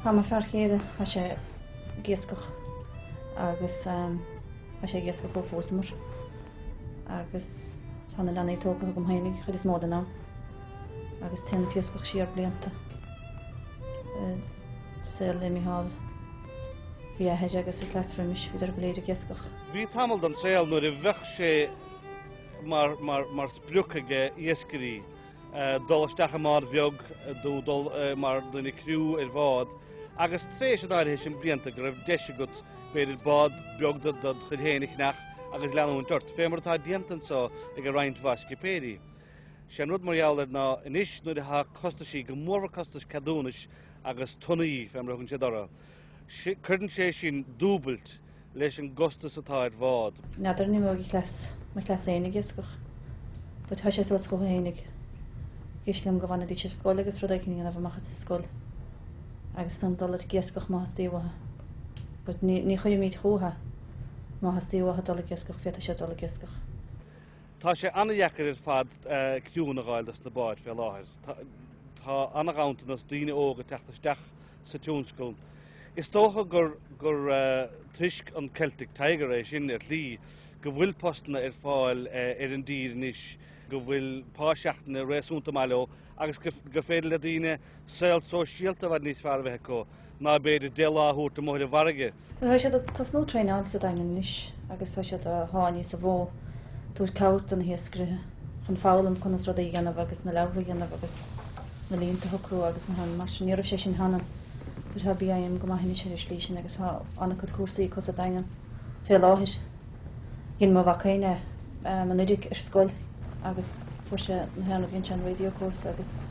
Tá mo fear chéile, tá sé ag iascach agus tá sé ag iascach ó phósamar agus tá na leanaí tógtha agam féinig chuid is mó den am agus téann an t-iascach siar blianta. Saol le Micheál, bhí a athair agus a cleas roimis, bhíodar go léir ag iascach. Bhí tamall den saol nuair a bheadh sé mar, mar, mar sprioc ag iascairí dul isteach i mbád bheag nó dul mar duine criú ar bhád agus tréis an áirithe sin blianta go raibh deis agat b'fhéidir bád beag de do chuid féin a cheannach agus leanúint ort, fé mar atá déanta anseo ag roinnt mhaith scipéirí. Sé an rud mar gheall air ná anois nuair atá costaisí, go mórmhór costais ceadúnais agus tonnaí, fé mar a thugann siad orthu, cuireann sé sin dúbailt leis an gcostas atá ar bhád. N'fheadar an imeoidh a chleas, mo chleas fhéin ag iascach, but tá sé suas chucu fhéinig. Thig liom go bhfanfaidís ar scoil agus rud éicint a dhéanamh amach as an scoil agus ansan dul ag iascach má theastaíonn uathu. But ní, ní chuirfimid chucu má theastaíonn uathu dul ag iascach, féadfaidh siad dul ag iascach. Tá sé an-dheacair ar fad criúnna a dh'fháil dos na báid fé láthair. Tá an-ghanntanas daoine óga ag teacht isteach sa tionscal. Is dócha gur gur toisc an Celtic Tiger é sin ar shlí, go bhfuil postanna ar fáil ar an dtír anois, go bhfuil pá seachtaine réasúnta maith leo agus gur féidir le daoine saol sóisialta i bhfad níos fearr a bheith acu ná b'fhéidir 10 lá a thabhairt amuigh ar an bhfarraige. Tá siad ag tosnú traenáil sa Daingean anois agus tá siad á sháinniú sa mhodh tabhairt cabhair do na hiascairithe chun foghlaim conas rudaí a dhéanamh agus na leabhartha a dhéanamh agus na líonta a shocrú agus na han mar sin. Ní raibh sé sin cheana but tá BIM go maith anois ar an slí sin agus tá an-chuid cúrsaí acu sa Daingean fé láthair. Dhein mo mhac féin é anuraidh ar scoil agus fuair sé na haon rud, dhein sé an radio course agus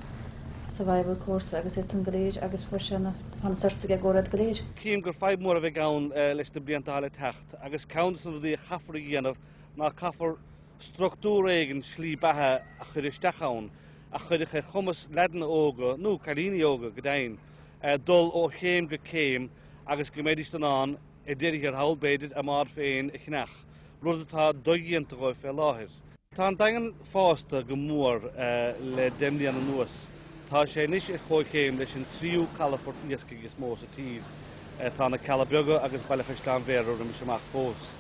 survival course agus iad san go léir agus fuair sé na Tá na certs aige i gcomhair iad go léir. Cím gur fadhb mhór a bheidh ann leis na blianta atá le teacht agus ceann de na rudaí a chaithfear a dhéanamh ná caithfear struchtúr éigin slí beatha a chur isteach ann a chuirfeadh ar chumas leaideanna óga, nó cailíní óga go deimhin, dul ó chéim go céim agus go mbeidís in ann, ar deireadh thiar thall, b'fhéidir, a mbád féin a cheannach, rud atá dodhéanta dhóibh fé láthair. Tá an Daingean fásta go mór le 10 mbliana anuas. Tá sé anois ar chomhchéim leis an tríú calafort iascaigh is mó sa tír. Tá na Cealla Beaga agus Baile Chaisleáin Bhéarra roimis amach fós.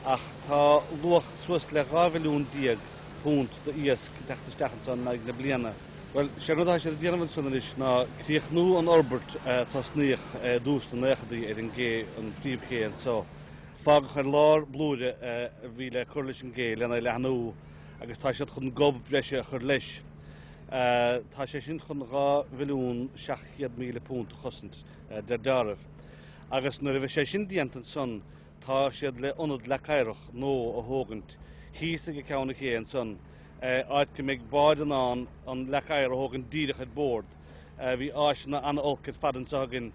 Ach tá luach suas le 12 mhilliún punt d'iasc ag teacht isteach anso in aghaidh na bliana. Bhuel, sé an rud atá siad ag déanamh ansan anois ná críochnú an fhorbairt a tosnaíodh i dtús na naochadaí ar an gcé, an phríomhché anso. Fágadh ar lár blúire a bhí le cur leis an gcé lena leathnú agus tá siad chun gob breise a chur leis. Tá sé sin chun £2,700,000 a chosaint, deir deáramh. Agus nuair a bheidh sé sin déanta ansan tá siad le ionad leac oighreach nua a thógaint thíos ag ceann an ché ansan, áit go mbeidh báid in ann an leac oighir a thógaint díreach ar bord. Bhí áiseanna an-olc ar fad anseo againn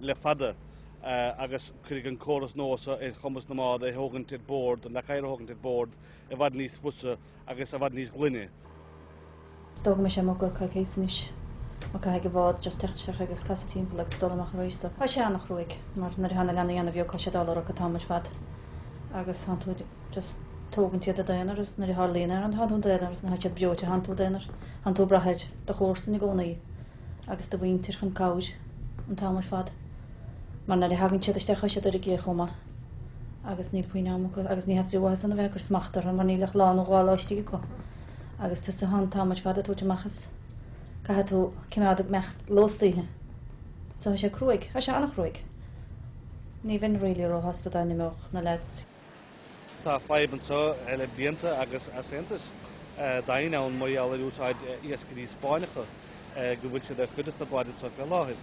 le fada agus cuirfidh an córas nua seo ar chumas na mbád é a thógaint ar bord, an leac oighir a thógaint ar bord i bhfad níos fusa agus i bhfad níos glaine. Is dóigh go mbeidh sé amuigh i gcomhair coicíos anois mar caithfidh an bhád just teacht isteach agus casadh timpeall agus dul amach arís so tá sé an-chruaidh mar nuair atá na leanaí an-bheag tá sé ag dul orthu an t-am ar fad agus tánn tú just tógaint iad i d'aonar agus nuair a tharlaíonn aon tánn tú i d'aonar agus nuair atá siad breoite tánn tú i d'aonar tánn tú ag brath ar do chomharsain i gcónaí agus do mhuintir chun cabhair an t-am ar fad mar nuair a thagann siad isteach tá siad ar an gcé chomh maith agus níl puinn am acu agus ní theastaíonn uathu san a bheith ag cur smacht orthu mar níl ach lá nó dhá lá istigh acu agus tusa an t-am ar fad ag tabhairt amach is caithfidh tú cimeád ag imeacht leo istoíche. So tá sé cruaidh, tá sé an-chruaidh. Ní bheinn really róshásta dá n-imeodh na lads. Tá fadhb anseo le blianta agus easaontas daingean ann mar gheall ar úsáid iascairí Spáinneacha, go bhfuil siad ar chuid de na báid anseo fé láthair.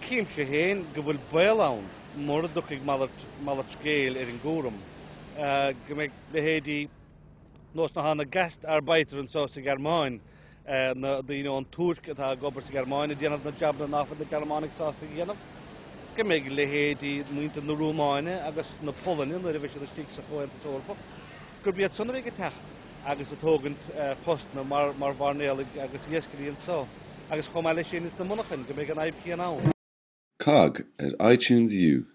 Címse féin go bhfuil baol ann, mura dtiocfaidh malairt scéil ar an gcúram, go mbeidh leithéidí nós na na Gastarbeiter anseo sa Ghearmáin, na daoine ón Túirc atá ag obair sa Ghearmáin ag déanamh na jabanna ná fuil na Gearmánaigh sásta a dhéanamh, go mbeidh leithéidí muintir na Rúmáine agus na Polainne, nuair a bheidh siad istigh sa Chomhaontas Eorpach, gurb iad san a bheidh ag teacht agus ag tógaint postanna mar mar mhairnéalaigh agus iascairí anseo, agus chomh maith leis sin ins na monarchain, go mbeidh an fhadhb chéanna ann. Cogg ar iTunes U.